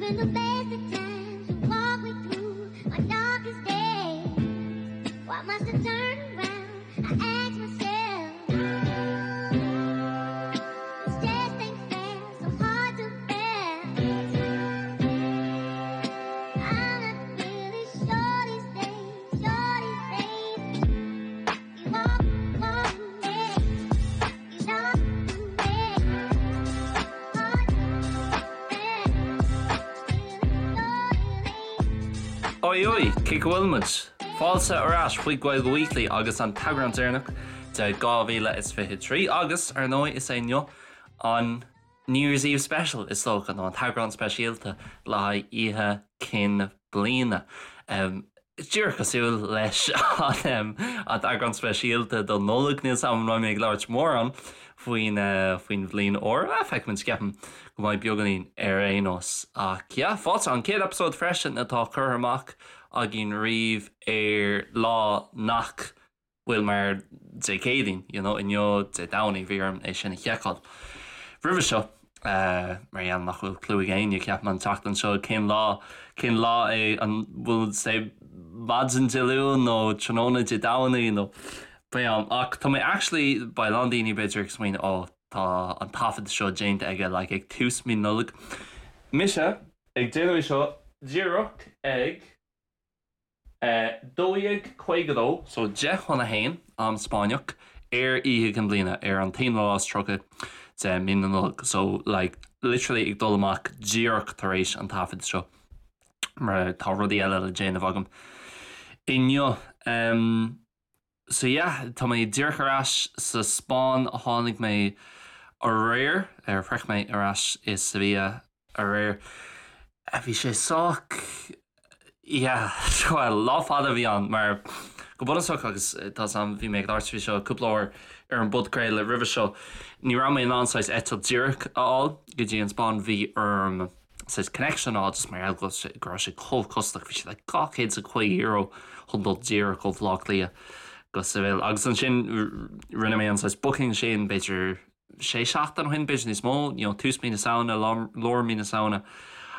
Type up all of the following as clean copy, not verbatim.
Even the best of times you walk me through my darkest days. Why must I turn around? I ask myself. This just ain't fair, so hard to bear. I'm not really sure these days, sure these days. You walk, walk me, you know me. Hard to bear. Oi oi, cén chaoi a bhfuil muid? Fáilte ar ais chuig Gaeilge Weekly agus an t-eagrán deireanach de 2023 agus, ar ndóigh, is é inniu an New Year's Eve Special, is dócha, nó an t-eagrán speisialta le haghaidh Oíche Chinn Bliana. Díreach cosúil leis an t-eagrán speisialta don Nollaig, níl 's agam an mbeidh mé ag labhairt mórán faoin faoin bhliain úr. Feicfimid, ceapaim go mbeidh beagáinín ar aon nós. Ach yeah, fáilte, an chéad eipeasóid freisin atá curtha amach againn riamh ar lá nach bhfuil mar Dé Céadaoin, you know, inniu Dé Domhnaigh, bhí orm é sin a sheiceáil roimhe seo, mar gheall nach bhfuil clue ag éinne, ceapaim, an tseachtain seo cén lá, cén lá é, an bhfuil sé maidin Dé Luain nó tráthnóna Dé Domhnaigh nó pé am. Ach tá mé actually, beidh a lán daoine b'fhéidir ag smaoineamh, oh, tá an taifead seo déanta aige like ag tús mí Nollag. Mise ag déanamh é seo díreach ag. 12:52, so 10 chun a haon, am Spáinneach, ar Oíche Chinn Bliana, ar an t-aonú lá is 30 de mí na Nollag. So, like, literally ag dul amach díreach tar éis an taifead seo, mar tá rudaí eile le déanamh agam inniu. Um, So yeah, tá mé díreach ar ais sa Spáinn, tháinig mé aréir, ar shroich mé ar ais i Sevilla aréir. Bhí sé sách, yeah, well, lá fada a bhí ann mar go bunúsach agus tá 's agam, bhí mé ag labhairt faoi seo cúpla uair ar an bpodchraoladh roimhe seo, ní raibh mé in ann saghas eitilt díreach a fháil go dtí an Spáinn, bhí orm saghas connection a fháil just mar gheall go raibh sé chomh costasach, bhí sé like €250 chun dul díreach ó Bhaile Átha Cliath go Seville. Agus ansin rinne mé an saghas booking sin b'fhéidir sé seachtain ó shin, b'fhéidir níos mó, you know, tús mí na Samhna, lár mí na Samhna.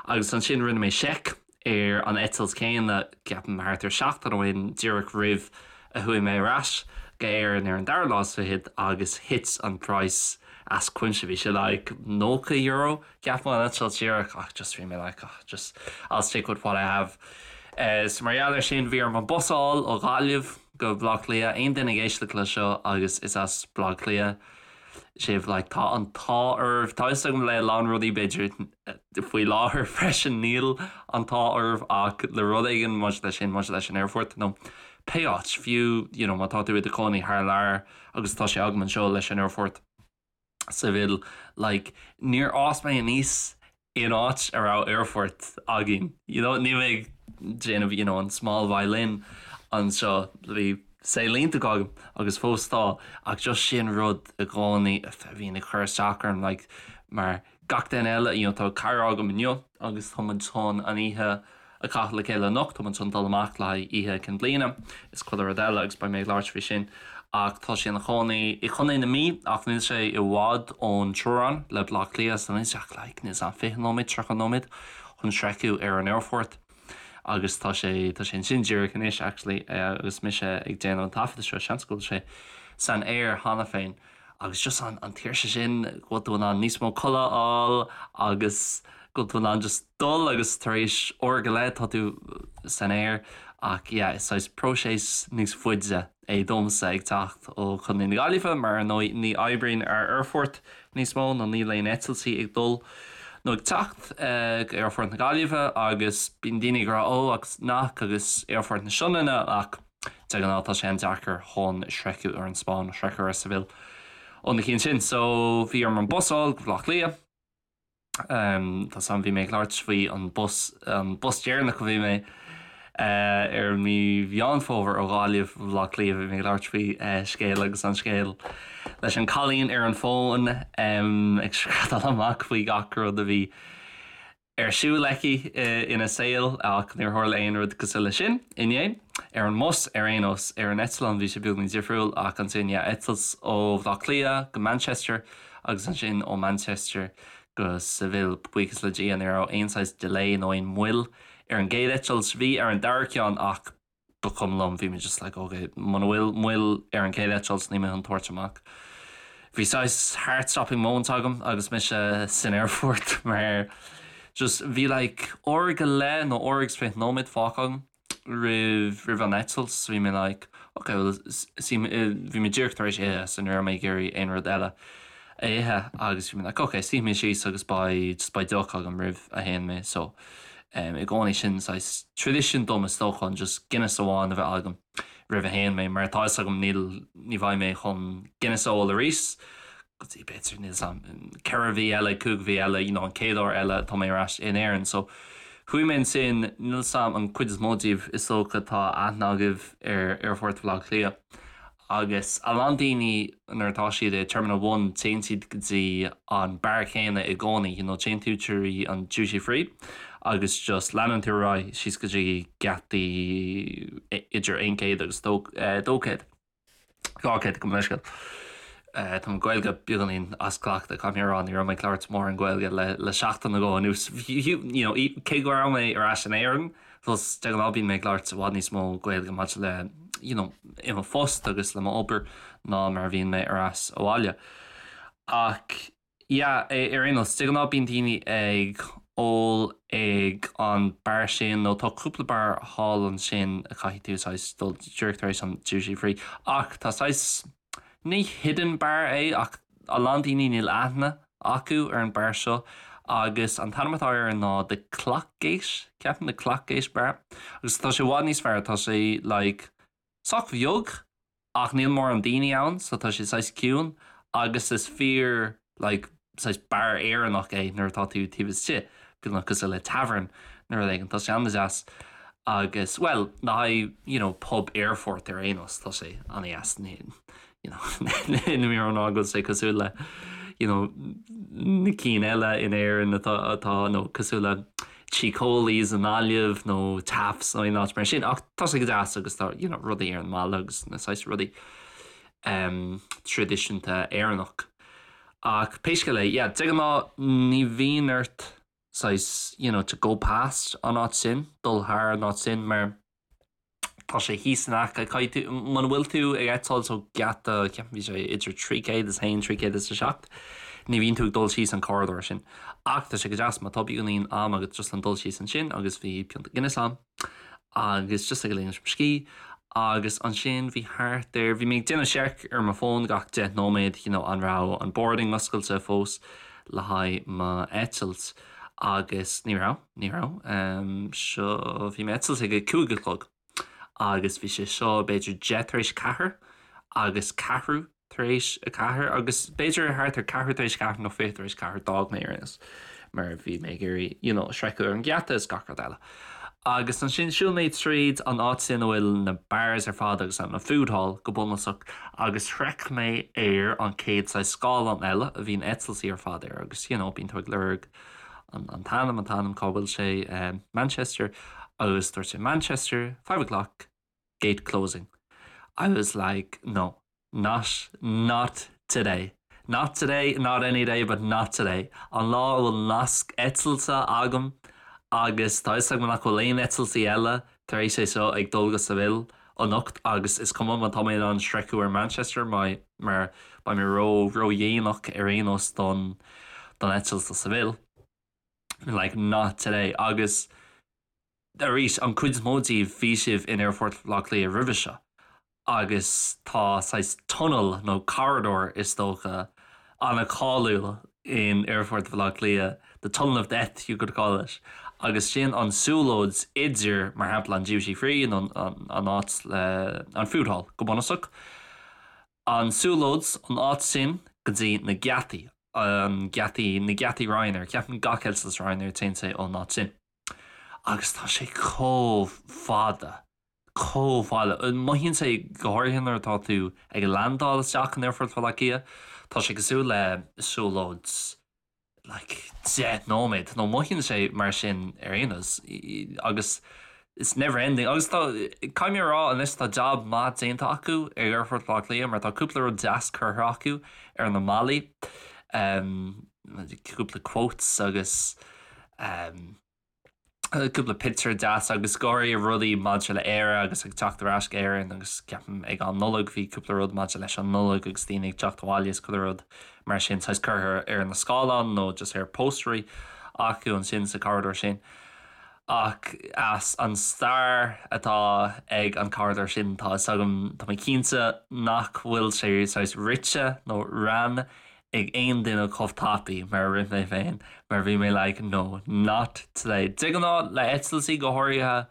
Agus ansin rinne mé seic ar an eitilt céanna, ceapaim thart ar seachtain ó shin, díreach roimh a chuaigh mé ar ais go Éirinn ar an dara lá is fichead agus thit an praghas as cuimse, bhí sé like €90 Ceapaim an eitilt díreach ach just bhí mé like oh just I'll stick with what I have. So mar gheall ar sin bhí orm an bus a fháil ó Ghaillimh go Baile Átha Cliath. Aon duine ag éisteacht le seo agus is as Baile Átha Cliath sibh like tá an t-ádh oraibh. Tá fhios agam le a lán rudaí b'fhéidir faoi láthair freisin níl an t-ádh oraibh ach le rud éigin maidir leis sin maidir leis an aerfort nó pé áit fiú you know má tá tú i do chónaí thar lear agus tá sé agam anseo leis an aerfort. Seville like níor fhás mé aníos in áit a raibh aerfort againn you know níl mé ag déanamh you know an small violin anseo bhí saol iontach agam agus fós tá ach just sin rud i gcónaí a bhíonn ag cur isteach orm like mar gach duine eile, you know tá cara agam inniu agus tá muid chun an oíche a chaitheamh le chéile anocht, tá muid chun dul amach le haghaidh Oíche Chinn Bliana is chuile rud eile agus beidh mé ag labhairt faoi sin ach tá sé ina chónaí i Chontae na Mí ach níl sé i bhfad ón teorainn le Baile Átha Cliath so níl sé ach like níl 's a'm 20 nóiméad, 30 nóiméad chun sroicheadh ar an aerfort agus tá sé tá sé ansin díreach anois actually agus mise ag déanamh an taifeadta seo, seans go bhfuil sé san aer cheana féin. Agus just an an tsaoirse sin go bhfuil tú in ann níos mó codladh a fháil agus go bhfuil tú in ann just dul agus tar éis uair go leith tá tú san aer ach yeah is saghas próiseas níos faide é domsa ag teacht ó Chontae na Gaillimhe mar ar ndóigh ní oibríonn ár aerfort níos mó nó níl aon eitiltí ag dul nó ag teacht go aerfort na Gaillimhe agus bíonn daoine ag rá ó agus nach agus aerfort na Sionainne ach De ghnáth tá sé an-deacair chun sroicheadh ar an Spáinn, sroicheadh ar Seville ó na cinn sin. So bhí orm an bus a fháil go Baile Átha Cliath. Tá 's a'm bhí mé ag labhairt faoi an bus, an bus deireanach a bhí mé ar mí Mheán Fómhair ó Ghaillimh go Baile Átha Cliath, bhí mé ag labhairt faoi scéal agus an scéal leis an cailín ar an bhfón ag screadaíl amach faoi gach rud a bhí ar siúl aici ina saol ach níor tharla aon rud cosúil leis sin inné. Ar an mbus ar aon nós, ar an eitleán bhí sé beagáinín difriúil ach ansin yeah, eitilt ó Bhaile Átha Cliath go Manchester agus ansin ó Manchester. go Seville. Buíochas le Dia ní raibh aon saghas delay nó aon mhoill ar an gcéad eitilt. Bhí ar an dara ceann ach ba chuma liom, bhí mé just like ok, muna bhfuil moill ar an gcéad eitilt níl mé chun tabhairt amach. Bhí saghas heart stopping moment agam agus mise san aerfort mar just bhí like uair go leith nó uair agus 20 nóiméad fágtha agam roimh roimh an eitilt so bhí mé like ok well bhí mé díreach tar éis ithe so ní raibh mé ag iarraidh aon rud eile a ithe agus bhí mé like ok suífidh mé síos agus beidh just beidh deoch agam roimh a théann mé so um, i gcónaí sin saghas tradition dom is dócha an just Guinness amháin a bheith agam roimh a théann mé mar tá fhios agam níl ní bheidh mé chun Guinness a ól arís go dtí b'fhéidir níl 's a'm 4 mhí eile, 5 mhí eile, you know an chéad uair eile atá mé ar ais in Éirinn. So chuaigh mé ansin, níl 's a'm an cuid is mó díobh is dócha tá aithne agaibh ar Aerfort Bhaile Átha Cliath agus a lán daoine nuair atá siad i Terminal One téann siad go dtí an beár céanna i gcónaí, you know téann tú trí an duty free agus just leanann tú ar aghaidh síos go dtí geataí idir 100 agus 200. 200 gabh mo leithscéal. Tá mo Ghaeilge beagáinín as cleachtadh, caithfidh mé a rá, ní raibh mé ag labhairt mórán Gaeilge le seachtain nó dhó anuas. You know, cé go raibh mé ar ais in Éirinn, fós de ghnáth bíonn mé ag labhairt i bhfad níos mó Gaeilge maidir le, you know, i mo phost agus le m'obair ná mar a bhíonn mé ar ais abhaile. Ach Yeah, ar aon nós, de ghnáth bíonn daoine ag ól ag an beár sin nó tá cúpla beár thall ansin a chaithfidh tú saghas dul díreach tar éis an duty free ach tá saghas, ní hidden bar é ach a lán daoine níl aithne acu ar an beár seo agus an t-ainm atá air ná The Clockgate, ceapaim The Clockgate Bar agus tá sé i bhfad níos fearr, tá sé like sách beag ach níl mórán daoine ann so tá sé saghas ciúin agus is fíor like saghas beár Éireannach é nuair atá tú taobh istigh, beagnach cosúil le tavern nó rud éigin, tá sé an-deas agus bhuel le haghaidh you know pub aerfort ar aon nós tá sé an-deas ní you know níl mé ag rá go bhfuil sé cosúil le you know na cinn eile in Éirinn atá atá nó cosúil le Tigh Cóilí's i nGaillimh nó Taffe's nó aon áit mar sin ach tá sé go deas agus tá you know rudaí ar an mballa agus na saghas rudaí um, traidisiúnta Éireannach. Ach pé scéal é, yeah, de ghnáth ní bhíonn ort saghas you know, to go past an áit sin, dul thar an áit sin mar Tá sé thíos in aice, caithfidh tú, muna bhfuil tú ag eitilt ó gheata, ceapaim bhí sé idir 301, 307, ní bhíonn tú ag dul síos an corridor sin. Ach tá sé go deas má tá beagáinín ama agat just le dul síos ansin agus bhí pionta Guinness a'm agus just ag ligint mo scíth agus ansin bhí thart ar, bhí mé ag déanamh seic ar mo fón gach 10 nóiméad, you know, an raibh an boarding oscailte fós le haghaidh m'eitilt agus ní raibh. Ní raibh. Seo, bhí m'eitilt ag a 5 a chlog agus bhí sé seo b'fhéidir 4:10 agus 4:15 agus b'fhéidir thart ar 4:15 nó 4:40 d'fhág mé ar aon nós mar bhí mé ag iarraidh you know sroicheadh ar an gheata is gach rud eile. Agus ansin shiúil mé tríd an áit sin a bhfuil na bars ar fad agus an food hall go bunúsach agus shroich mé ar an chéad saghas scáileán eile a bhíonn eitiltí ar fad air agus you know bíonn tú ag lorg an t-ainm, an t-ainm, cá bhfuil sé, Manchester, agus dúirt sé Manchester, 5 o'clock, gate closing. I was like, no, not, not today. Not today, not any day, but not today. An lá a bhfuil nasc eitilte agam agus tá fhios agam nach bhfuil aon eitiltí eile tar éis é seo ag dul go Seville anocht agus is cuma má tá mé in ann sroicheadh ar Manchester mar beidh mé ró ródhéanach ar aon nós don don eitilt do Seville. Like not today. Agus arís an cuid is mó díobh bhí sibh in Aerfort Bhaile Átha Cliath roimhe seo. agus tá saghas tunnel nó corridor is dócha an-cháiliúil in Aerfort Bhaile Átha Cliath, the tunnel of death you could call it, agus sin an siúlóid idir mar shampla an duty free nó an áit le an food hall go bunúsach, an siúlóid an áit sin go dtí na geataí, an geataí, na geataí Ryanair, ceapaim gach eitilt Ryanair téann sé ón áit sin agus tá sé chomh fada. chomh fada. Mothaíonn sé, go háirithe nuair atá tú ag landáil isteach in Aerfort Bhaile Átha Cliath, tá sé cosúil le siúlóid like 10 nóiméad, nó mothaíonn sé mar sin ar aon nós, agus it's never ending. Agus tá, caithfidh mé a rá anois, tá jab maith déanta acu ag Aerfort Bhaile Átha Cliath mar tá cúpla rud deas curtha acu ar na mballaí. cúpla quotes agus um, cúpla pictiúr deas agus go háirithe rudaí maidir le Éire agus ag teacht ar ais go Éirinn agus ceapaim ag an Nollaig bhí cúpla rud maidir leis an Nollaig agus daoine ag teacht abhaile is chuile rud mar sin saghas curtha ar na scáileáin nó just ar póstairí acu ansin sa corridor sin. Ach as an stair atá ag an corridor sin tá fhios agam tá mé cinnte nach bhfuil sé saghas rite nó ran ag aon duine chomh tapaidh mar a rith mé féin mar bhí mé like no not today. De ghnáth le eitiltí go háirithe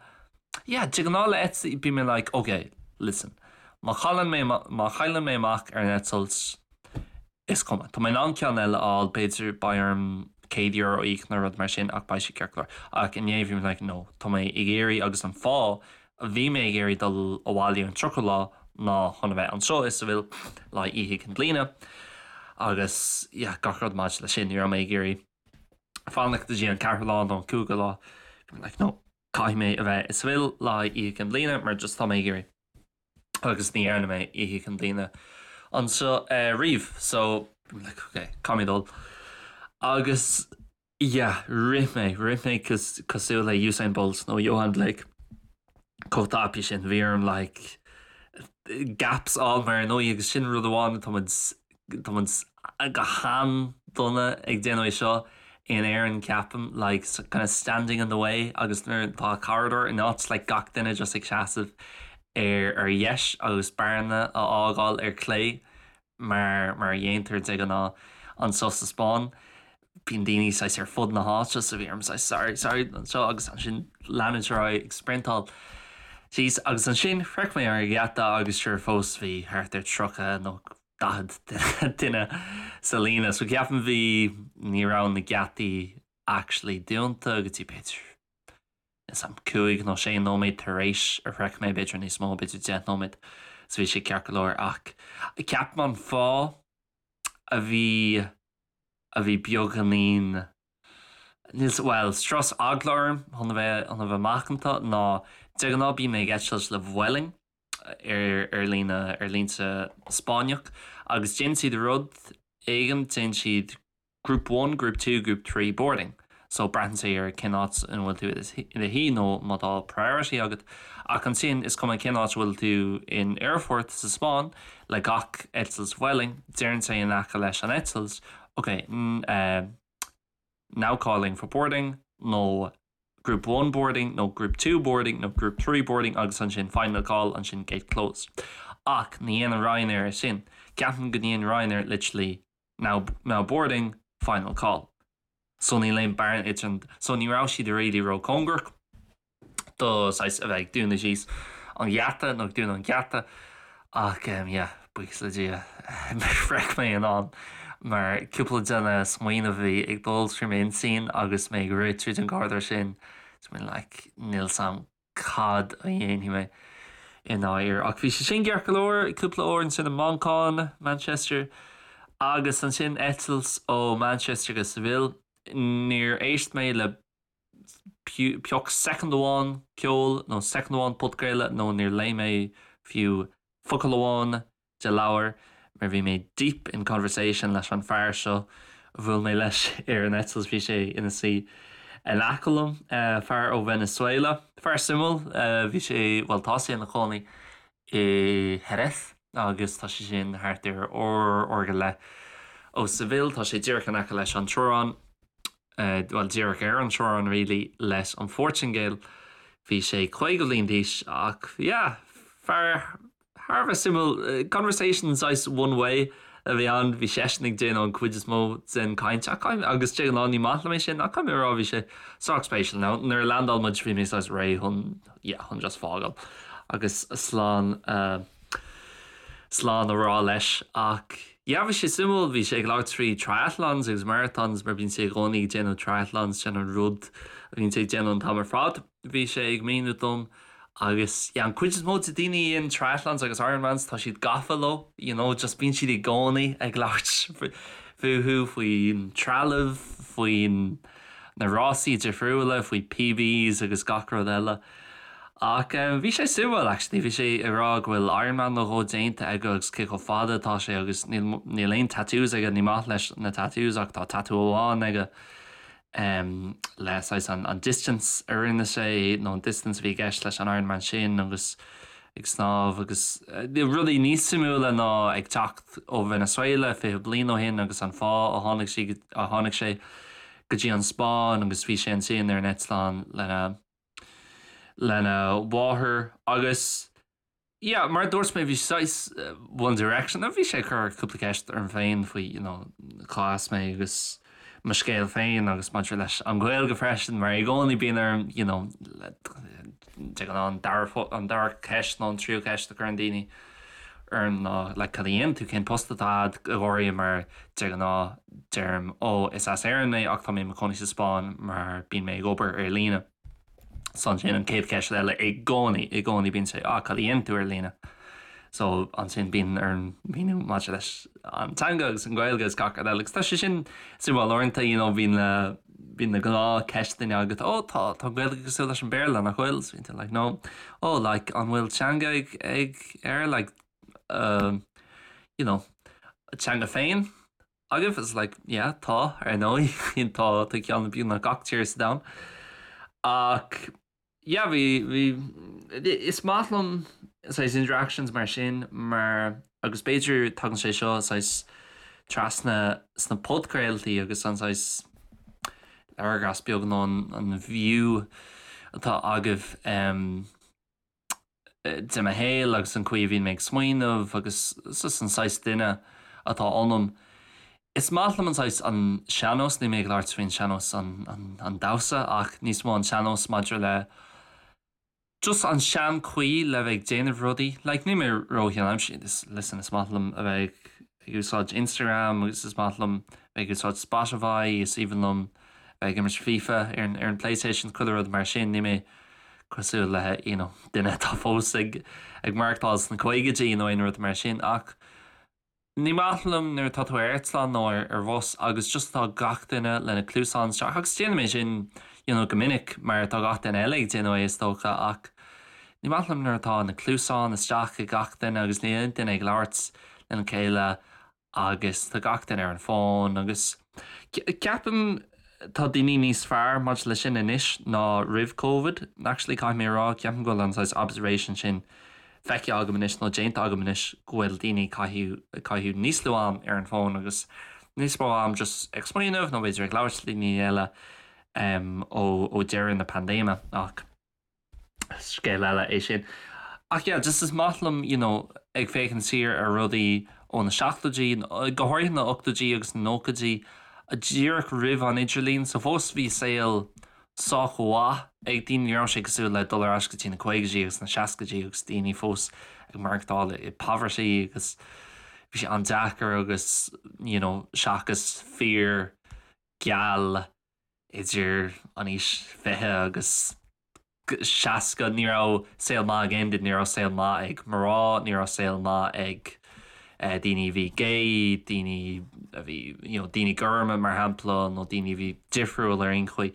yeah de ghnáth le eitiltí bím mé like ok listen má chailleann mé má chailleann mé amach ar an eitilt is cuma tá mé in ann ceann eile a fháil b'fhéidir beidh orm €100 a íoc nó rud mar sin ach beidh sé ceart go leor ach inné bhí mé like no tá mé ag iarraidh agus an fáth Bhí mé ag iarraidh dul abhaile an 30ú lá ná chun a bheith anseo i Seville le haghaidh Oíche Chinn Bliana agus yeah gach rud maidir leis sin. Ní raibh mé ag iarraidh fanacht go dtí an ceathrú lá nó an cúigiú lá. Bhí mé like no, caithfidh mé a bheith i Seville le haghaidh Oíche Chinn Bliana mar just tá mé ag iarraidh agus ní dhearna mé Oíche Chinn Bliana anseo riamh so bhí mé like ok, caithfidh mé dul agus Yeah, rith mé, rith mé cosúil le Usain Bolt nó Yohan Blake chomh tapaidh sin. Bhí orm like gaps a fháil mar ar ndóigh agus sin rud amháin tá muid tá muid go han-dona ag déanamh é seo in Éirinn ceapaim like kind of standing in the way agus nuair atá corridor in áit like gach duine just ag seasamh ar ar dheis agus bearna a fhágáil ar clé mar mar a dhéantar de ghnáth anseo sa Spáinn. Bíonn daoine saghas ar fud na háite so bhí orm saghas sorry sorry anseo agus ansin leanúint ar aghaidh ag sprintáil síos agus ansin shroich mé an geata agus sure fós bhí thart ar 30 nó 40 duine sa líne so ceapaim bhí ní raibh na geataí actually dúnta go dtí b'fhéidir is am 5 nó 6 nóiméad tar éis a shroich mé, b'fhéidir níos mó, b'fhéidir 10 nóiméad, so bhí sé ceart go leor ach ceapaim an fáth a bhí a bhí beagáinín níl bhuel strus eagla orm chun a bheith chun a bheith macánta ná de ghnáth bím ag eitilt le Vueling ar ar líne aerlínte Spáinneach agus déanann siad rud éigin déanann siad Group one, Group two, Group 3 boarding. So braitheann sé ar cén áit ina bhfuil tú i do shuí nó má tá priority agat. Ach ansin is cuma cén áit a bhfuil tú in aerfort sa Spáinn le gach eitilt Vueling, deireann sé in aice leis an eitilt, ok, now calling for boarding nó Group 1 boarding nó Group 2 boarding nó Group 3 boarding agus ansin final call, ansin gate closed. Ach ní dhéanann Ryanair é sin. Ceapaim go ndéanann Ryanair literally Now now boarding, final call. So níl aon bearna idir an so ní raibh siad really ró-cóngarach do saghas a bheith ag dúnadh síos an gheata nó ag dúnadh an geata ach um, yeah, buíochas le Dia shroich mé in am mar cúpla de na smaoineamh a bhí ag dul trí m'intinn agus mé ag rith tríd an gcorridor sin, so mé like níl 's a'm cad a dhéanfaidh mé i ndáiríre. Ach bhí sé sin ceart go leor, cúpla uair ansin i Manchain, Manchester, agus ansin eitilt ó Manchester go Seville. Níor éist mé le pioc soicind amháin ceoil nó soicind amháin podchraoladh nó níor léigh mé fiú focal amháin de leabhar mar bhí mé deep in conversation leis an fear seo a bhuail mé leis ar an eitilt, bhí sé ina suí in aice liom, fear ó Venezuela, fear suimiúil, bhí sé, bhuel tá sé ina chónaí i Jerez agus tá sé sin thart ar uair, uair go leith ó Seville, tá sé díreach in aice leis an teorainn, bhuel díreach ar an teorainn really leis an Phortaingéil, bhí sé 50 bliain d'aois ach yeah, fear Thar a bheith suimiúil. Conversation saghas one way a bhí ann, bhí seisean ag déanamh an cuid is mó den caint ach agus de ghnáth ní maith liom é sin ach caithfidh mé a rá bhí sé sách spéisiúil. Now nuair a landáil muid bhí mé saghas réidh chun yeah chun just fágáil agus slán slán a rá leis ach yeah bhí sé suimiúil, bhí sé ag labhairt faoi triathlons agus marathons mar bíonn sé i gcónaí ag déanamh triathlons sin an rud a bhíonn sé ag déanamh an t-am ar fad. Bhí sé ag míniú dom Agus yeah, an cuid is mó de daoine a dhéanann triathlons agus Ironmans, tá siad gafa leo, you know, just bíonn siad i gcónaí ag labhairt fúthu, faoin trealamh, faoin na rásaí difriúla, faoi PBs agus gach rud eile. Ach bhí sé suimiúil actually, bhí sé ag rá go bhfuil Ironman nó dhó déanta aige agus cé chomh fada atá sé agus níl níl aon tattoos aige, ní maith leis na tattoos ach tá tattoo amháin aige le saghas an an distance a rinne sé nó an distance a bhí i gceist leis an Ironman sin agus ag snámh agus rudaí níos suimiúla ná ag teacht ó Venezuela 20 bliain ó shin agus an fáth a tháinig sí a tháinig sé go dtí an Spáinn agus bhí sé ansin ar an eitleán lena lena mháthair agus yeah mar a dúirt mé bhí saghas One Direction bhí sé ag cur cúpla ceist orm féin faoi you know cá as mé agus mo scéal féin agus maidir leis an Ghaeilge freisin mar i gcónaí bíonn orm you know de ghnáth an dara an dara ceist nó an tríú ceist a chuireann daoine orm ná like cad a dhéanann tú cén post atá agat go háirithe mar de ghnáth deirim ó is as Éirinn mé ach tá mé i mo chónaí sa Spáinn mar bíonn mé ag obair ar líne. So ansin an chéad cheist eile i gcónaí i gcónaí bíonn sé ah cad a dhéanann tú ar líne? So ansin bíonn orm míniú maidir leis an teanga agus an Ghaeilge agus gach rud eile agus tá sé sin suimiúil uaireanta you know bíonn na bíonn na gnáthcheisteanna agat ó tá tá an Ghaeilge cosúil leis an Béarla nach bhfuil? So bíonn tú like no oh like an bhfuil teanga ag ag ar like uh, you know teanga féin agaibh? It's like yeah tá ar ndóigh tá tá ceann beagnach gach tír sa domhan ach yeah bhí bhí is maith liom saghas interactions mar sin mar agus b'fhéidir tagann sé seo saghas trasna sna podchraoltaí agus an saghas léargas beag nó an an view atá agaibh um, de mo shaol agus an chaoi a bhíonn mé ag smaoineamh agus just an saghas duine atá ionam. Is maith liom an saghas an sean-nós, níl mé ag labhairt faoin sean-nós an damhsa ach níos mó an sean-nós maidir le just an sean-chaoi le bheith ag déanamh rudaí. Like níl mé ró-sheanaimseartha, listen is maith liom a bheith ag úsáid Instagram agus is maith liom bheith ag úsáid Spotify, is aoibhinn liom bheith ag imirt FIFA ar an ar an PlayStation, chuile rud mar sin, níl mé cosúil le you know duine atá fós ag ag maireachtáil sna caogaidí nó aon rud mar sin ach ní maith liom nuair atá tú ar eitleán nó ar ar bhus agus just tá gach duine lena cluasáin isteach agus déanaim é sin you know go minic mar tá gach duine eile ag déanamh é is dócha ach ní maith liom nuair atá na cluasáin isteach ag gach duine agus níl aon duine ag labhairt lena chéile agus tá gach duine ar an bhfón agus ceapaim tá daoine níos fearr maidir leis sin anois ná roimh Covid. Actually caithfidh mé a rá, ceapaim go bhfuil an saghas observation sin feicthe agam anois nó déanta agam anois go bhfuil daoine ag caitheamh níos lú am ar an bhfón agus níos mó am just ag smaoineamh nó b'fhéidir ag labhairt le daoine eile ó deireadh na paindéime ach Scéal eile é sin. Ach yeah, just is maith liom, you know, ag féachaint siar ar rudaí ó na seachtóidí, go háirithe na ochtóidí agus na nóchaidí, díreach roimh an idirlíon, so fós bhí saol sách mhaith ag daoine, ní raibh sé cosúil le dul ar ais go dtí na caogaidí agus na seascaidí agus daoine fós ag maireachtáil i poverty agus bhí sé an-deacair agus, you know, seachas fir geal idir an aois 20 agus 60, ní raibh saol maith ag aon duine, ní raibh saol maith ag mná, ní raibh saol maith ag daoine a bhí gay, daoine a bhí, you know, daoine gorma mar shampla nó daoine a bhí difriúil ar aon chaoi.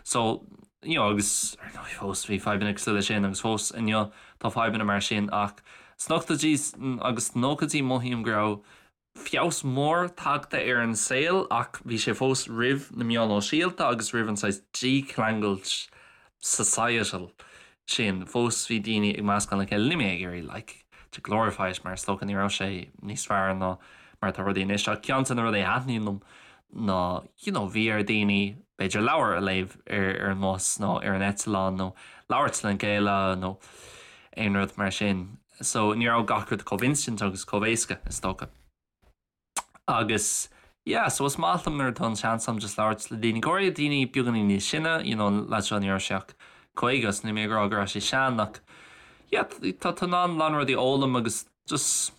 So, you know, agus ar ndóigh fós bhí fadhbanna cosúil leis sin agus fós inniu tá fadhbanna mar sin ach sna hochtóidí agus sna nóchaidí mothaím go raibh feabhas mór tagtha ar an saol ach bhí sé fós roimh na meáin shóisialta agus roimh an saghas dícheangailt societal sin. Fós bhí daoine ag meascán le chéile. Níl mé ag iarraidh like to glorify it mar is dócha ní raibh sé níos fearr ná mar atá rudaí anois ach ceann de na rudaí a thaitníonn liom ná you know bhí ar daoine b'fhéidir leabhar a léamh ar ar an mbus nó ar an eitleán nó labhairt lena chéile nó aon rud mar sin. So ní raibh gach rud chomh instant agus chomh éasca, is dócha. Agus yeah, so is maith liom nuair atá an seans agam just labhairt le daoine, go háirithe daoine beagáinín níos sine, you know, an leaid seo ní raibh sé ach 50, so níl mé ag rá go raibh sé sean ach yeah, tá tú in ann a lán rudaí a fhoghlaim agus just,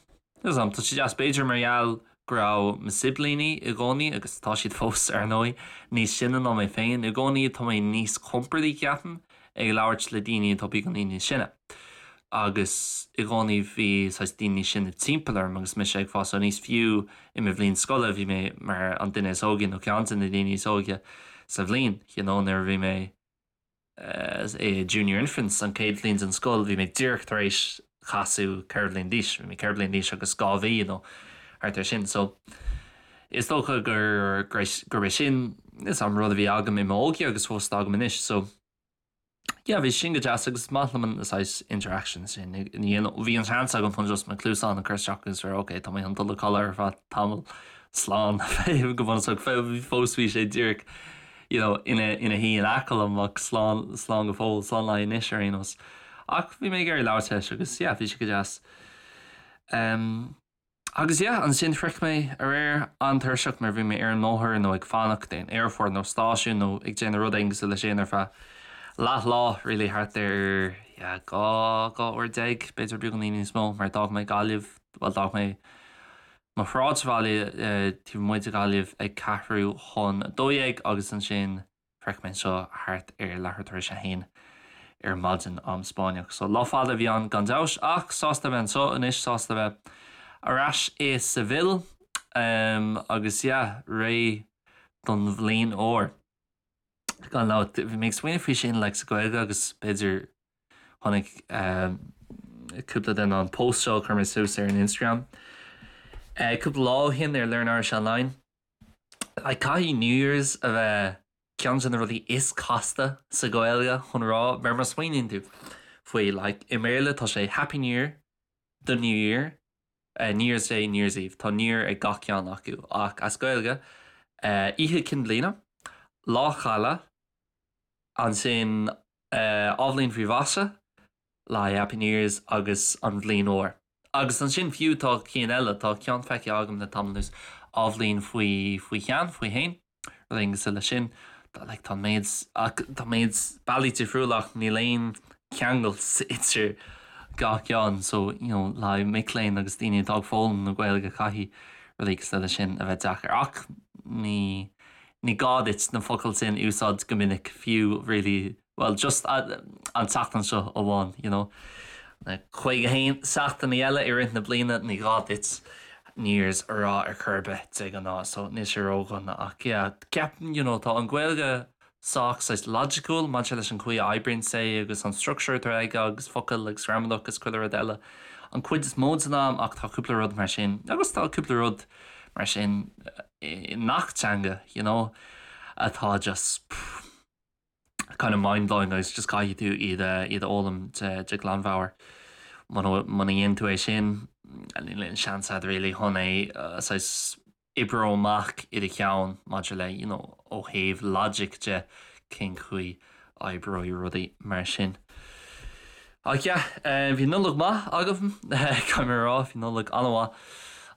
níl 's agam, tá sé deas b'fhéidir mar gheall go raibh mo siblíní i gcónaí, agus tá siad fós ar ndóigh, níos sine ná mé féin, i gcónaí tá mé níos compordaí ceapaim ag labhairt le daoine atá beagáinín níos sine. Agus i gcónaí bhí saghas daoine níos sine timpeall orm agus mise ag fás aníos, fiú i mo bhliain scoile bhí mé mar an duine is óige nó ceann de na daoine is óige sa bhliain, you know, nuair a bhí mé. i Junior Infants, an chéad bhliain den scoil, bhí mé díreach tar éis casadh 4 bhliain d'aois, bhí mé 4 bliain d'aois agus 2 mhí nó thart ar sin. So is dócha gur gurb é sin is an rud a bhí agam i m'óige agus fós atá agam anois. So yeah, bhí sin go deas agus is maith liom an saghas interaction sin. Bhí an seans agam chun just mo cluasáin a chur isteach agus rá ok, tá mé chun dul a chodladh ar feadh tamall slán go bunúsach fós bhí sé díreach you know, ina ina shuí in aice liom ach slán slán go fóill, slán le anois ar aon nós. Ach bhí mé ag iarraidh labhairt leis agus yeah, bhí sé go deas. Um, agus yeah, ansin shroich mé aréir an-tuirseach mar bhí mé ar an mbóthar nó ag fanacht in aerfort nó stáisiún nó ag déanamh rud éigin cosúil leis sin ar feadh leath lá really thart ar yeah, 12 uair b'fhéidir beagáinín níos mó mar d'fhág mé Gaillimh, well d'fhág mé mo shráidbhaile taobh amuigh de Ghaillimh ag ceathrú chun 12 agus ansin shroich mé anseo thart ar leathuair tar éis a haon ar maidin, am Spáinneach. So lá fada a bhí ann gan dabht ach sásta a bheith anseo anois, sásta a bheith ar ais i Seville agus yeah, réidh don bhliain úr. Gan dabht, bhí mé ag smaoineamh faoi sin like sa Ghaeilge agus b'fhéidir Chonaic cúpla duine an post seo a chuir mé suas ar an Instagram cúpla lá ó shin ar Learn Irish Online. Like, caithfidh New Year's a bheith ceann de na rudaí is casta sa Ghaeilge chun rá, mar má smaoiníonn tú faoi, like, i mBéarla tá sé Happy New Year, The New Year, New Year's Day, New Year's Eve. Tá New Year ag gach ceann acu ach as Gaeilge, Oíche Chinn Bliana, Lá Caille, ansin Athbhliain faoi mhaise, le haghaidh Happy New Year's agus an Bhliain Úr. Agus ansin fiú tá cinn eile, tá ceann feicthe agam le tamall anuas, Athbhliain faoi faoi shean, faoi shéan, rud éigin cosúil leis sin. Tá like tá méid ach tá méid bealaí difriúla ach níl aon cheangal idir gach ceann so you know le haghaidh mic léinn agus daoine atá ag foghlaim na Gaeilge caithfidh rudaí cosúil leis sin a bheith deacair ach ní Ní gá duit na focail sin a úsáid go minic fiú really, well just an tseachtain seo amháin, you know. Na 51 seachtainí eile i rith na bliana ní gá duit New Year's a rá ar chor ar bith de ghnáth so níl sé ródhona ach yeah ceapaim you know tá an Ghaeilge sách saghas logical maidir leis an chaoi a oibríonn sé agus an structure atá aige agus focail agus gramadach agus chuile rud eile an chuid is mó den am ach tá cúpla rud mar sin agus tá cúpla rud mar sin i ngach teanga you know atá just kind of mind blowing agus just caithfidh tú iad a iad a fhoghlaim de de ghlanmheabhair. Muna muna dhéanann tú é sin níl aon seans agat really chun é saghas oibriú amach i do cheann maidir le you know ó thaobh logic de cén chaoi a oibreoidh rudaí mar sin. Ach yeah, bhí Nollaig maith agam, caithfidh mé a rá, bhí Nollaig an-mhaith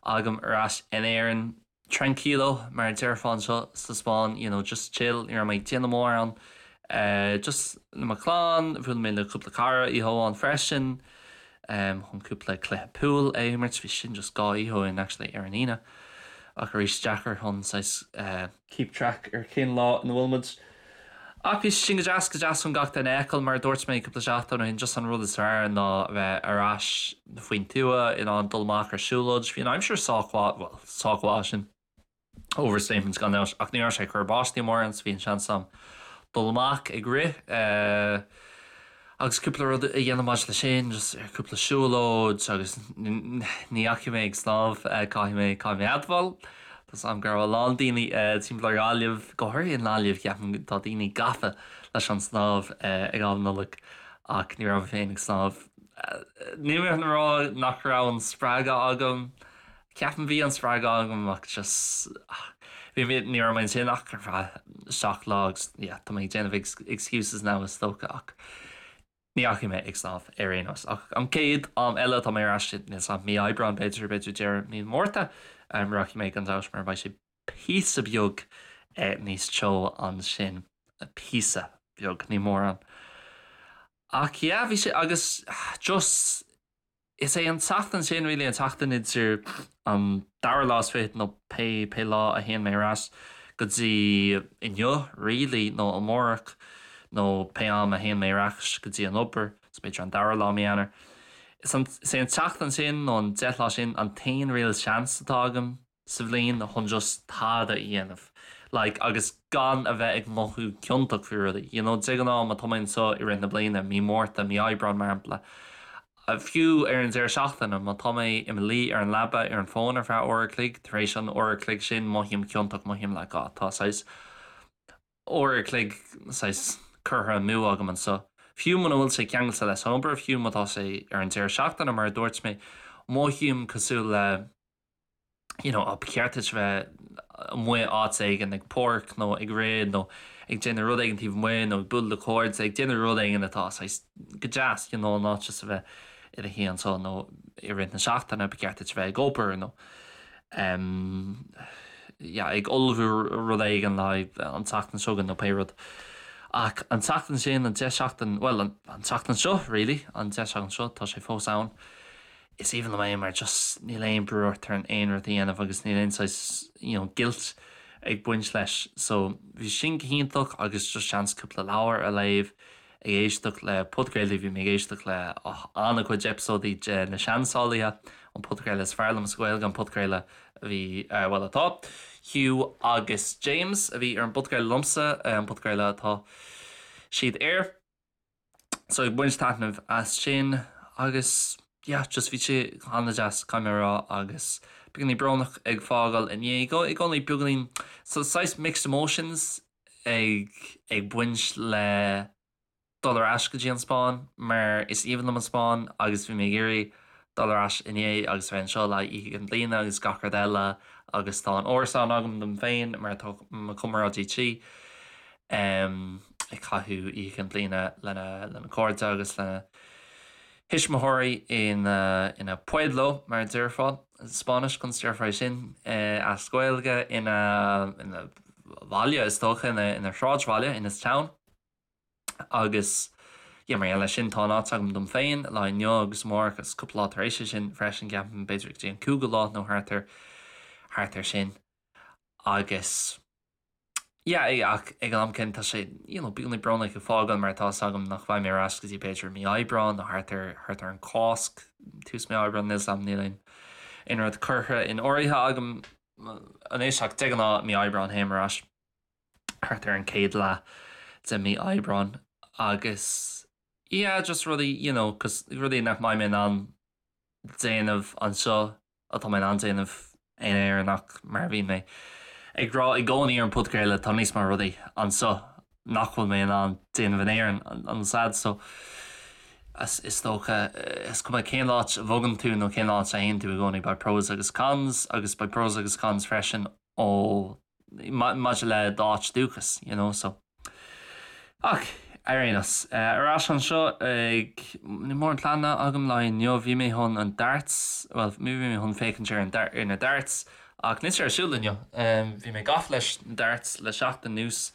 agam ar ais in Éirinn. Tranquilo, mar a déarfá anseo sa Spáinn, you know, just chill, ní raibh mé ag déanamh mórán. Just le mo chlann, bhuail mé le cúpla cara oíche amháin freisin, chun cúpla cluiche pool a imirt, bhí sin just 2 oíche ó shin actually, ar an Aoine. Ach arís, deacair chun saghas. keep track ar cén lá ina bhfuil muid. Ach bhí sin go deas, go deas chun gach duine a fheiceáil, mar a dúirt mé cúpla seachtain ó shin, just an rud is fearr ná a bheith ar ais faoin tuath, in ann dul amach ar siúlóid. Bhí an aimsir sách mhaith, bhuel, sách mhaith, sin overstatement gan dabht, ach ní raibh sé ag cur báistí mórán so bhí an seans agam dul amach ag rith. Agus cúpla rud a dhéanamh maidir leis sin, just ar cúpla siúlóid agus ní dheachaigh mé ag snámh, caithfidh mé, caithfidh mé admháil. Tá 's agam go raibh a lán daoine timpeall ar Ghaillimh, go háirithe i nGaillimh, ceapaim tá daoine gafa leis an snámh ag am Nollag ach ní raibh mé féin ag snámh. Níl mé chun a rá nach raibh an spreagadh agam, Ceapaim bhí an spreagadh agam ach just bhí mé, ní raibh mé ansin ach ar feadh 7 lá agus yeah tá mé ag déanamh excuses now is dócha ach ní dheachaigh mé ag snámh ar aon nós. Ach an chéad am eile atá mé ar ais níl 's a'm mí Aibreán b'fhéidir, b'fhéidir deireadh mí Márta rachaidh mé gan dabht mar beidh sé píosa beag níos teo ansin, píosa beag, ní mórán. Ach yeah bhí sé agus just Is é an tseachtain sin really an tseachtain idir an dara lá is fichead nó pé pé lá a théann mé ar ais go dtí inniu really nó amárach nó pé am a théann mé ar ais go dtí an obair, so b'fhéidir an dara lá mí Eanáir. Is an is é an tseachtain sin nó an 10 lá sin an t-aon real seans atá agam sa bhliain chun just tada a dhéanamh. Like agus gan a bheith ag mothú ciontach faoi rudaí. You know, de ghnáth má tá mé anseo i rith na bliana, mí Márta, mí Aibreán mar shampla, fiú ar an deireadh seachtaine, má tá mé i mo luí ar an leaba ar an bhfón ar feadh uair a chloig, tar éis an uair a chloig sin mothaím ciontach, mothaím like ah tá saghas uair a chloig saghas curtha amú agam anseo. Fiú muna bhfuil sé ceangailte leis an obair, fiú má tá sé ar an deireadh seachtaine mar a dúirt mé, mothaím cosúil le you know, ba cheart duit bheith amuigh áit éigin ag páirc nó ag rith nó ag déanamh rud éigin taobh amuigh nó ag bualadh le cairde, ag déanamh rud éigin atá saghas go deas, you know, not just a bheith i do shuí anseo nó i rith na seachtaine ba cheart duit bheith ag obair nó um, yeah, ag ullmhú rud éigin le an tseachtain seo chugainn nó pé rud. Ach an tseachtain sin, an 10 seachtain, well, an, an tseachtain seo, really, an 10 seachtain seo, tá sé fós ann. Is aoibhinn liom é mar just níl aon brú ort ar aon rud a dhéanamh agus níl aon saghas you know guilt ag baint leis. So bhí sin go hiontach agus just seans cúpla leabhar a léamh, ag éisteacht le podchraoltaí, bhí mé ag éisteacht le oh, an-chuid eipeasóidí de Na Seansálaithe, an podchraoladh is fearr liom sa Ghaeilge, an podchraoladh a bhí, eh, bhuel atá, Hugh agus James a bhí ar an bpodchraoladh liomsa, an podchraoladh atá siad air. So ag baint taitneamh as sin agus yeah just bhí sé an-deas caithfidh mé a rá agus beagáinín brónach ag fágáil inné i gcónaí beagáinín so saghas mixed emotions ag ag baint le dul ar ais go dtí an Spáinn mar is aoibhinn liom an Spáinn agus bhí mé ag iarraidh dul ar ais inné agus bheith anseo le Oíche Chinn Bliana agus gach rud eile agus tá an árasán agam dom féin mar tá mo chomrádaí tí. ag caitheamh Oíche Chinn Bliana lena cairde agus lena thuismitheoirí ina pueblo, mar a déarfá i Spáinnis, conas a déarfá é sin as Gaeilge, ina bhaile is dócha, ina shráidbhaile, in his town. Agus yeah, mar gheall leis sin, tá an áit agam dom féin lá inniu agus amárach agus cúpla lá tar éis sin freisin, ceapaim, b'fhéidir go dtí an cúigiú lá nó thart ar thart ar sin. Agus. Yeah, ach ag an am céanna tá sé, you know, beagáinín brónach ag fágáil mar tá 'fhios agam nach mbeidh mé ar ais go dtí b'fhéidir mí Aibreán nó thart ar, thart ar an Cásc, tús mí Aibreán, níl 'fhios agam, níl aon, aon rud curtha in áirithe agam anois ach de ghnáth mí Aibreán théim ar ais thart ar an chéad leath de mí Aibreán agus yeah, just rudaí, you know, 'cause rudaí nach mbeidh mé in ann déanamh anseo atá mé in ann déanamh in Éirinn ach mar a bhíonn mé ag rá i gcónaí ar an podchraoladh tá níos mó rudaí anseo nach bhfuil mé in ann déanamh in Éirinn an sad so is dócha is cuma cén áit a bhogann tú nó cén áit a théann tú i gcónaí beidh pros agus cons agus beidh pros agus cons freisin ó maidir le d'áit dúchas, you know, so. Ach, ar aon nós, ar ais anseo ag, níl mórán pleananna agam le inniu, bhí mé chun an darts, bhuel, bhí mé chun féachaint ar an ar na darts, ach níl sé ar siúl inniu. Bhí mé gafa leis na darts le seachtain anuas.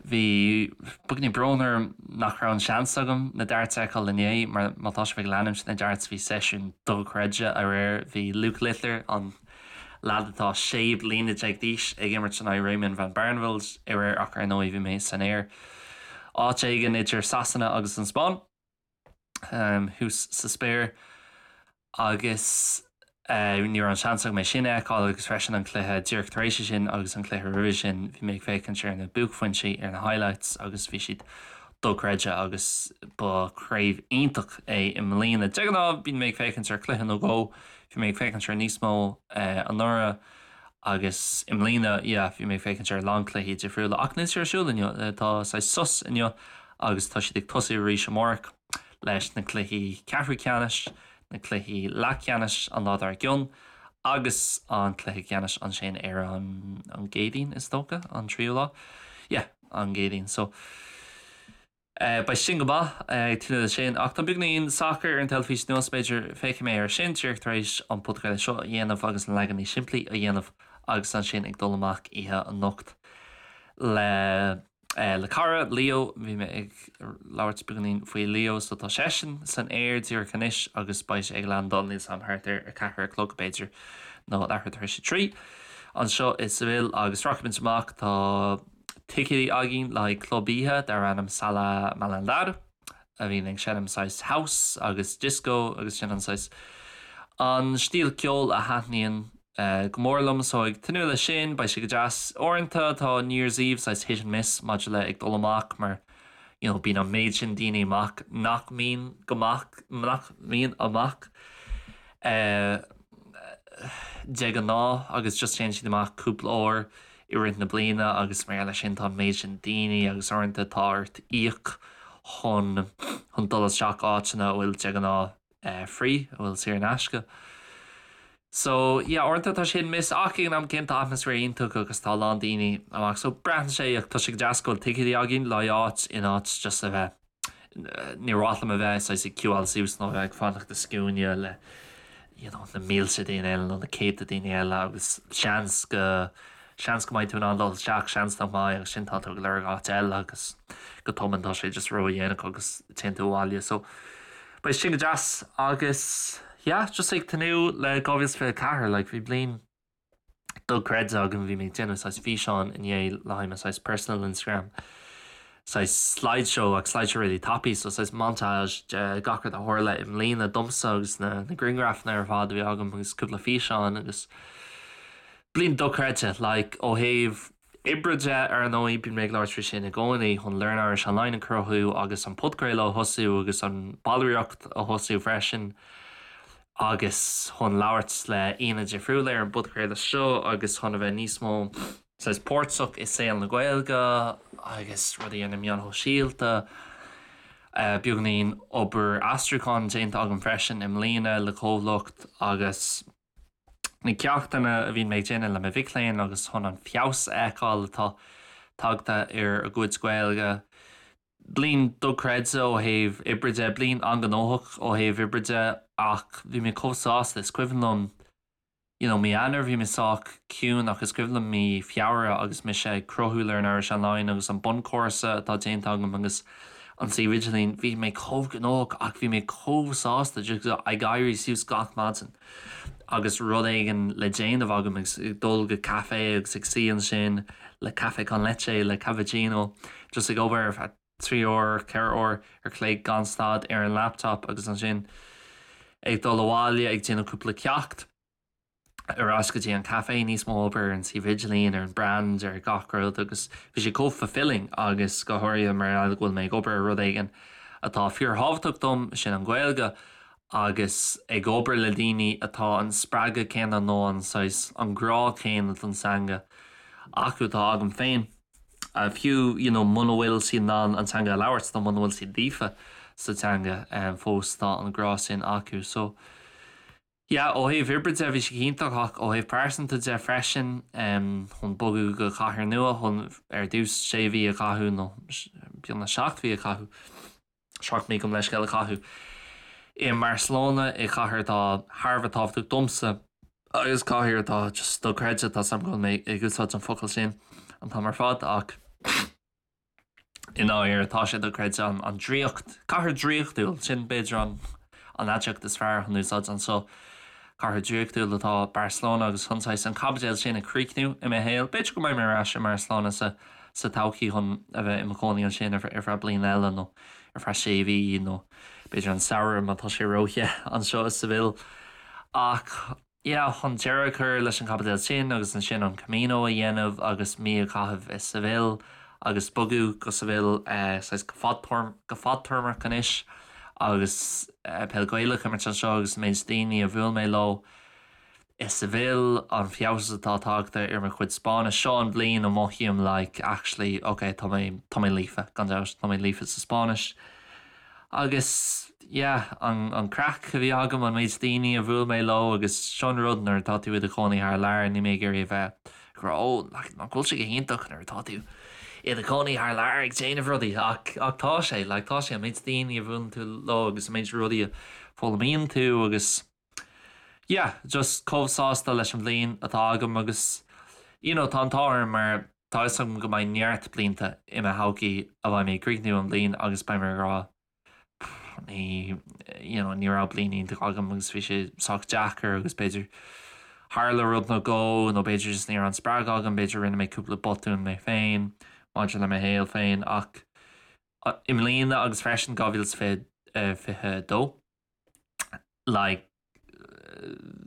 Bhí beagáinín brón orm nach raibh an seans agam na darts a fheiceáil inné, mar má tá sibh ag leanúint na darts bhí seisiún dochreidte aréir, bhí Luke Littler, an leaid atá 16 bliana d'aois ag imirt in aghaidh Raymond van Barneveld aréir ach ar ndóigh bhí mé san aer áit éigin idir Sasana agus an Spáinn thuas sa spéir agus ní raibh an seans agam é sin a fheiceáil agus freisin an cluiche díreach tar éis sin agus an cluiche roimhe sin bhí mé ag féachaint ar na buaicphointí ar na highlights agus bhí siad dochreidte agus ba chraobh iontach é i mbliana. De ghnáth bíonn mé ag féachaint ar chluiche nó dhó Bhí mé ag féachaint ar níos mó anuraidh agus i mbliana, yeah, bhí mé ag féachaint ar a lán cluichí difriúla ach níl sé ar siúl inniu. Tá saghas sos inniu agus tá siad ag tosú arís amárach leis na cluichí ceathrú ceannais, na cluichí leathcheannais an lá dár gcionn agus an cluiche ceannais ansin ar an an gCéadaoin is dócha, an tríú lá. Yeah, an gCéadaoin. So. Beidh sin go maith, ag tnúth leis sin. Ach tá beagáinín sacair ar an teilifís inniu, b'fhéidir féachfaidh mé air sin díreach tar éis an podchraoladh seo a dhéanamh agus an leagan níos simplí a dhéanamh agus ansin ag dul amach oíche anocht le le cara, Leo. Bhí mé ag labhairt beagáinín faoi Leo so tá seisean san aer díreach anois agus beidh sé ag landáil níl 's a'm thart ar 4 a chlog b'fhéidir nó leathuair tar éis a 3 anseo i Seville agus rachaimid amach tá ticéidí againn le haghaidh club oíche darb ainm Sala Malandar a bhíonn ag seinm saghas house agus disco agus sin an saghas an stíl ceoil a thaitníonn go mór liom so ag tnúth leis sin, beidh sé go deas. Uaireanta tá New Year's Eve saghas hit and miss maidir le ag dul amach mar you know bíonn an méid sin daoine amach nach mbíonn go maith nach mbíonn amach de ghnáth agus just téann siad amach cúpla uair i rith na bliana agus mar gheall air sin tá an méid sin daoine agus uaireanta tá ort íoc chun chun dul isteach áiteanna a bhfuil de ghnáth free, a bhfuil saor in aisce. So yeah uaireanta tá sé hit and miss ach ag an am céanna tá atmaisféar iontach agus tá a lán daoine amach so braitheann sé ach tá sé go deas go bhfuil ticéidí againn le áit in áit just a bheith níor mhaith liom a bheith saghas ag queueáil suas nó a bheith ag fanacht i scuaine le you know na mílte daoine eile nó na céadta daoine eile agus seans go seans go mbeidh tú in ann dul isteach, seans nach mbeidh agus sin tá tú ag lorg áit eile agus go tobann tá sé just ródhéanach agus téann tú abhaile. So beidh sin go deas agus yeah, just ag tnúth le 2024, like bhí bliain dochreidte agam, bhí mé ag déanamh saghas físeán inné le haghaidh mo saghas personal Instagram, saghas slideshow ach slideshow really tapaidh, so saghas montage de gach rud a tharla i mbliana domsa agus na na grianghrafanna ar fad a bhí agam agus cúpla físeán agus Bliain dochreidte, like, ó thaobh oibre de, ar ndóigh, bíonn mé ag labhairt faoi sin i gcónaí, chun Learn Irish Online a chruthú agus an podchraoladh a thosú agus an ballraíocht a thosú freisin agus chun labhairt le aíonna difriúla ar an bpodchraoladh seo agus chun a bheith níos mó saghas páirteach i saol na Gaeilge agus rudaí ar na meáin shóisialta. Beagáinín obair aistriúcháin déanta agam freisin i mbliana le comhlacht agus. na ceachtanna a bhíonn mé ag déanamh le mo mhic léinn agus chun an feabhas a fheiceáil atá tagtha ar a gcuid Gaeilge. Bliain dochreidte ó thaobh oibre de, bliain an-ghnóthach ó thaobh oibre de ach bhí mé chomh sásta, is cuimhin liom you know mí Eanáir bhí mé sách ciúin ach is cuimhin liom mí Feabhra agus mise ag cruthú Learn Irish Online agus an bunchúrsa atá déanta agam agus an suíomh idirlín, bhí mé chomh gnóthach ach bhí mé chomh sásta just ag éirí suas gach maidin agus rud éigin le déanamh agam agus ag dul go caife agus ag suí ansin le café con leche, le cappuccino, just ag obair ar feadh 3 uair, 4 uair ar chloig gan stad ar an laptop agus ansin ag dul abhaile ag déanamh cúpla ceacht. ar ais go dtí an caife, níos mó obair ar an suíomh idirlín, ar an brand, ar gach rud agus bhí sé chomh fulfilling agus go háirithe mar gheall go bhfuil mé ag obair ar rud éigin atá fíorthábhachtach dom, sin an Ghaeilge agus ag obair le daoine atá an spreagadh céanna nó an saghas, an grá céanna don teanga acu atá agam féin. Fiú you know muna bhfuil siad in ann an teanga a labhairt nó muna bhfuil siad líofa sa teanga fós tá an grá sin acu so Yeah, ó thaobh oibre de bhí sé go hiontach ach ó thaobh pearsanta de freisin, chun bogadh go cathair nua, chun ar dtús sé mhí a chaitheamh nó beagnach 7 mhí a chaitheamh, 7 mí gabh mo leithscéal a chaitheamh i mBarcelona, i chathair atá thar a bheith tábhachtach domsa agus cathair atá just dochreidte, tá 's agam go bhfuil mé ag úsáid an focal sin an t-am ar fad ach. I ndáiríre, tá sé dochreidte an draíocht, cathair draíochtúil, sin b'fhéidir an an aidiacht is fearr chun úsáid anseo. Cathair draíochtúil atá Barcelona agus chun saghas an caibidil sin a chríochnú i mo shaol. B'fhéidir go mbeidh mé ar ais i mBarcelona sa sa todhchaí chun a bheith i mo chónaí ansin ar feadh bliain eile nó ar feadh sé mhí nó b'fhéidir an samhradh má tá sé róthe anseo i Seville. Ach. yeah, chun deireadh a chur leis an chaibidil sin agus ansin an Camino a dhéanamh agus mí a chaitheamh i Seville agus bogadh go Seville saghas go fadtéarmach anois agus peil Ghaelach a imirt anseo agus an méid daoine a bhuail mé leo i Seville, an feabhas atá tagtha ar mo chuid Spáinnis. Seo an bhliain a mothaím like actually ok tá mé tá mé líofa, gan dabht, tá mé líofa sa Spáinnis. Agus yeah, an an craic a bhí agam, an méid daoine a bhuail mé leo agus seo an rud nuair atá tú i do chónaí thar lear, níl mé ag iarraidh a bheith ag rá oh nach nach bhfuil sé go hiontach nuair atá tú i do chónaí thar lear ag déanamh rudaí ach ach tá sé, like tá sé an méid daoine a bhuaileann tú leo agus an méid rudaí a foghlaimíonn tú agus yeah, just chomh sásta leis an bhliain atá agam agus you know tá an t-ádh orm mar Tá fhios agam go mbeidh neart blianta i mo thodhchaí a bheidh mé ag críochnú an bhliain agus beidh mé ag rá ní you know ní raibh bliain iontach agam agus bhí sé sách deacair agus b'fhéidir tharla rud nó dhó nó b'fhéidir just ní raibh an spreagadh agam, b'fhéidir rinne mé cúpla botún mé féin maidir le mo shaol féin ach i mbliana agus freisin 2022 like.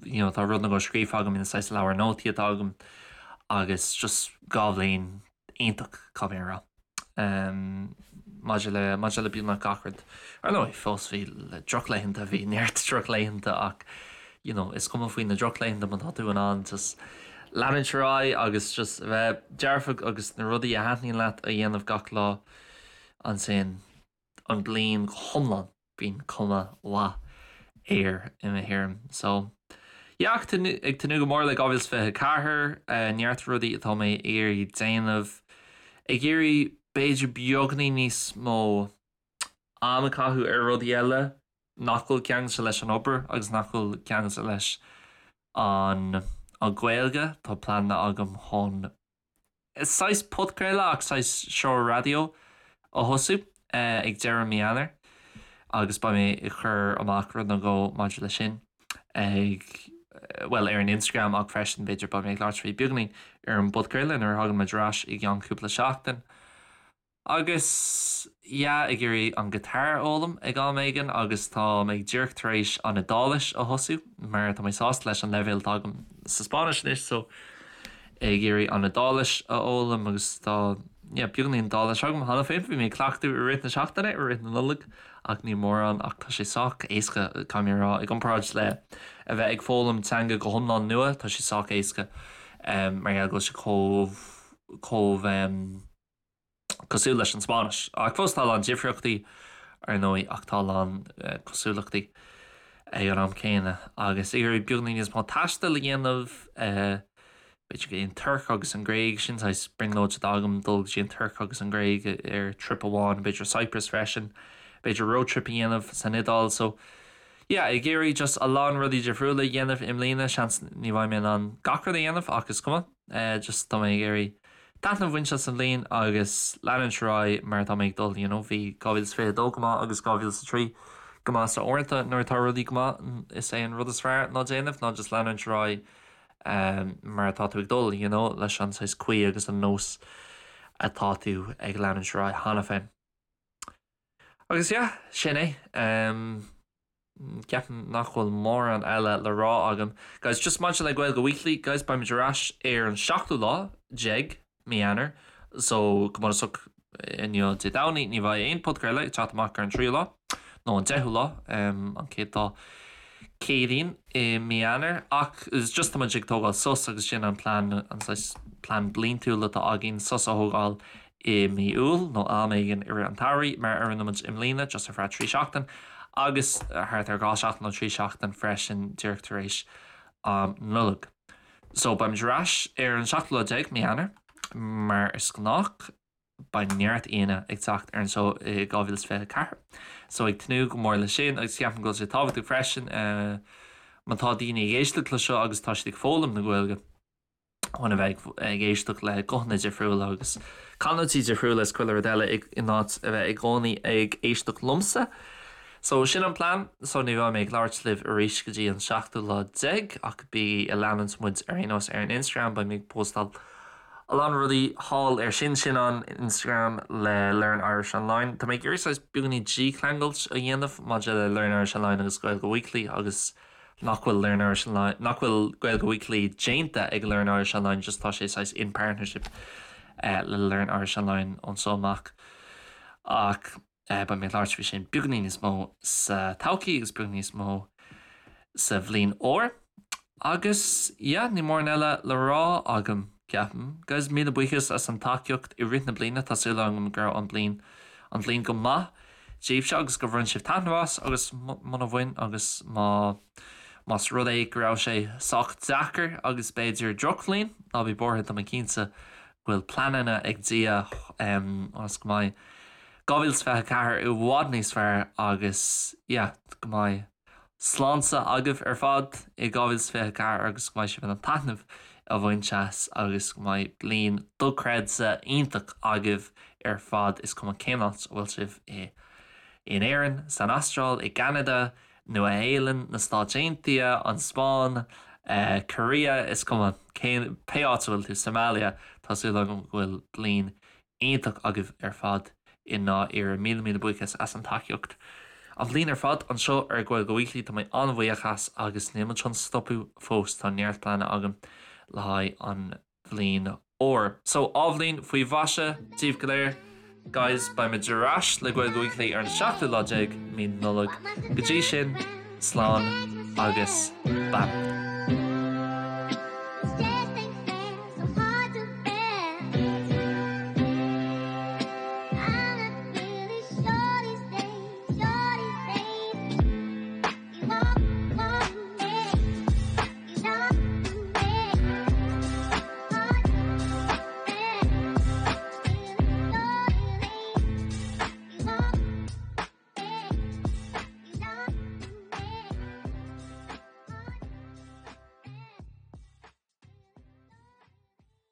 you know tá rud nó dhó scríofa agam in saghas leabhar nótaí atá agam agus just 2 bhliain iontach caithfidh mé a rá. Maidir le maidir le beagnach gach rud. Ar ndóigh fós bhí drochlaethanta bhí neart drochlaethanta ach you know is cuma faoi na drochlaethanta má tá tú in ann just leanúint ar aghaidh agus just a bheith dearfach agus na rudaí a thaitníonn leat a dhéanamh gach lá ansin an bliain go hiomlán. bíonn cuma mhaith air i mo thuairim. So yeah ag tnúth go mór le 2024, neart rudaí atá mé ag iarraidh déanamh, ag iarraidh b'fhéidir beagainín níos mó am a chaitheamh ar rudaí eile nach bhfuil ceangailte leis an obair agus nach bhfuil ceangailte leis an an Ghaeilge. Tá pleananna agam chun saghas podchraoladh ach saghas seó raidió a thosú ag deireadh mí Eanáir agus beidh mé ag cur amach rud nó dhó maidir leis sin ag, bhuel, ar an Instagram ach freisin b'fhéidir beidh mé ag labhairt faoi beagáinín ar an bpodchraoladh nuair a thagann muid ar ais i gceann cúpla seachtain. Agus yeah, ag iarraidh an guitar a fhoghlaim ag am éigin agus tá mé díreach tar éis an Iodáilis a thosú mar tá mé sásta leis an leibhéal atá agam sa Spáinnis anois so ag iarraidh an Iodáilis a fhoghlaim agus tá yeah beagáinín Iodáilis agam cheana féin. Bhí mé ag cleachtadh i rith na seachtaine, i rith na Nollag ach ní mórán ach tá sé sách éasca caithfidh mé a rá i gcomparáid le a bheith ag foghlaim teanga go hiomlán nua tá sé sách éasca mar gheall go bhfuil sé chomh chomh cosúil leis an Spáinnis. Ach fós tá a lán difríochtaí, ar ndóigh, ach tá a lán cosúlachtaí ag an am céanna. Agus ag iarraidh beagáinín níos mó taistil a dhéanamh, b'fhéidir go dtí an Tuirc agus an Ghréig, sin saghas brionglóid atá agam, dul go dtí an Tuirc agus an Ghréig ar trip amháin, b'fhéidir Cyprus freisin, b'fhéidir road trip a dhéanamh san Iodáil. So, yeah, ag iarraidh just a lán rudaí difriúla a dhéanamh i mbliana, seans ní bheidh mé in ann gach rud a dhéanamh ach is cuma, just tá mé ag iarraidh taitneamh a bhaint as an bhliain agus leanúint ar aghaidh mar atá mé ag dul, you know, bhí 2022 go maith agus 2003 go maith so uaireanta nuair atá rudaí go maith is é an rud is fearr ná déanamh ná just leanúint ar aghaidh mar atá tú ag dul, you know, leis an saghas caoi agus an nós atá tú ag leanúint ar aghaidh cheana féin. Agus yeah, sin é. Um, Ceapaim nach bhfuil mórán eile le rá agam. Guys, just maidir le Gaeilge Weekly, guys, beimid ar ais ar an seachtú lá déag mí Eanáir, so go bunúsach inniu Dé Domhnaigh ní bheidh aon podchraoladh ag teacht amach ar an tríú lá, nó an deichiú lá, an chéad lá Céadaoin i mí Eanáir, ach is just tá muid ag tógáil sos agus sin an plean, an saghas plean bliantúil atá againn, sos a thógáil i mí Iúil nó am éigin i rith an tsamhraidh, mar a rinne muid i mbliana, just ar feadh 3 seachtain, agus thart ar 2 seachtain nó 3 seachtain freisin díreach tar éis am Nollag. So beimid ar ais ar an seachtú lá déag mí Eanáir, mar is gnách. Beidh neart aíonna ag teacht ar an seó i 2024, so ag tnúth go mór leis sin agus ceapaim go bhfuil sé tábhachtach freisin má tá daoine ag éisteacht le seo agus tá siad ag foghlaim na Gaeilge, chun a bheith ag éisteacht le guthanna difriúla agus canúintí difriúla is chuile rud eile in áit a bheith i gcónaí ag éisteacht liomsa. So sin an plean, so ní bheidh mé ag labhairt libh arís go dtí an seachtú lá déag ach bígí ag leanúint muid ar aon nós ar an Instagram, beidh mé ag postáil a lán rudaí thall ar sin, sin an Instagram le Learn Irish Online. Tá mé ag iarraidh saghas beagáinín dícheangailt a dhéanamh maidir le Learn Irish Online agus Gaeilge Weekly agus nach bhfuil Learn Irish Online, nach bhfuil Gaeilge Weekly déanta ag Learn Irish Online, just tá sé saghas in partnership le Learn Irish Online ón so amach. Ach beidh mé ag labhairt faoi sin beagáinín níos mó sa todhchaí agus beagáinín níos mó sa bhliain úr. Agus yeah, níl mórán eile le rá agam, ceapaim. Guys, míle buíochas as an tacaíocht i rith na bliana, tá súil agam go raibh an bliain an bhliain go maith daoibhse agus gur bhain sibh taitneamh as agus muna bhain agus má más rud é go raibh sé sách deacair agus b'fhéidir drochbhliain, ná bí buartha tá mé cinnte go bhfuil pleananna ag Dia ionas go mbeidh 2024 i bhfad níos fearr agus yeah go mbeidh sláinte agaibh ar fad i 2024 agus go mbeidh sibh in ann taitneamh a bhaint as agus go mbeidh bliain dochreidte iontach agaibh ar fad, is cuma cén áit a bhfuil sibh i in Éirinn, san Astráil, i gCeanada, Nua Shéalainn, na Stáit Aontaithe, an Spáinn, Korea, is cuma cén pé áit a bhfuil tú, Somalia, tá súil agam go bhfuil bliain iontach agaibh ar fad i ndáiríre. Míle míle buíochas as an tacaíocht. An bhliain ar fad anseo ar Gaeilge Weekly tá mé an-bhuíoch as agus níl muid chun stopadh fós, tá neart pleananna agam le haghaidh an bhliain úr. So athbhliain faoi mhaise daoibh go léir. Guys, beidh muid ar ais le Gaeilge Weekly ar an seachtú lá déag mí Nollag. Go dtí sin, slán agus beannacht.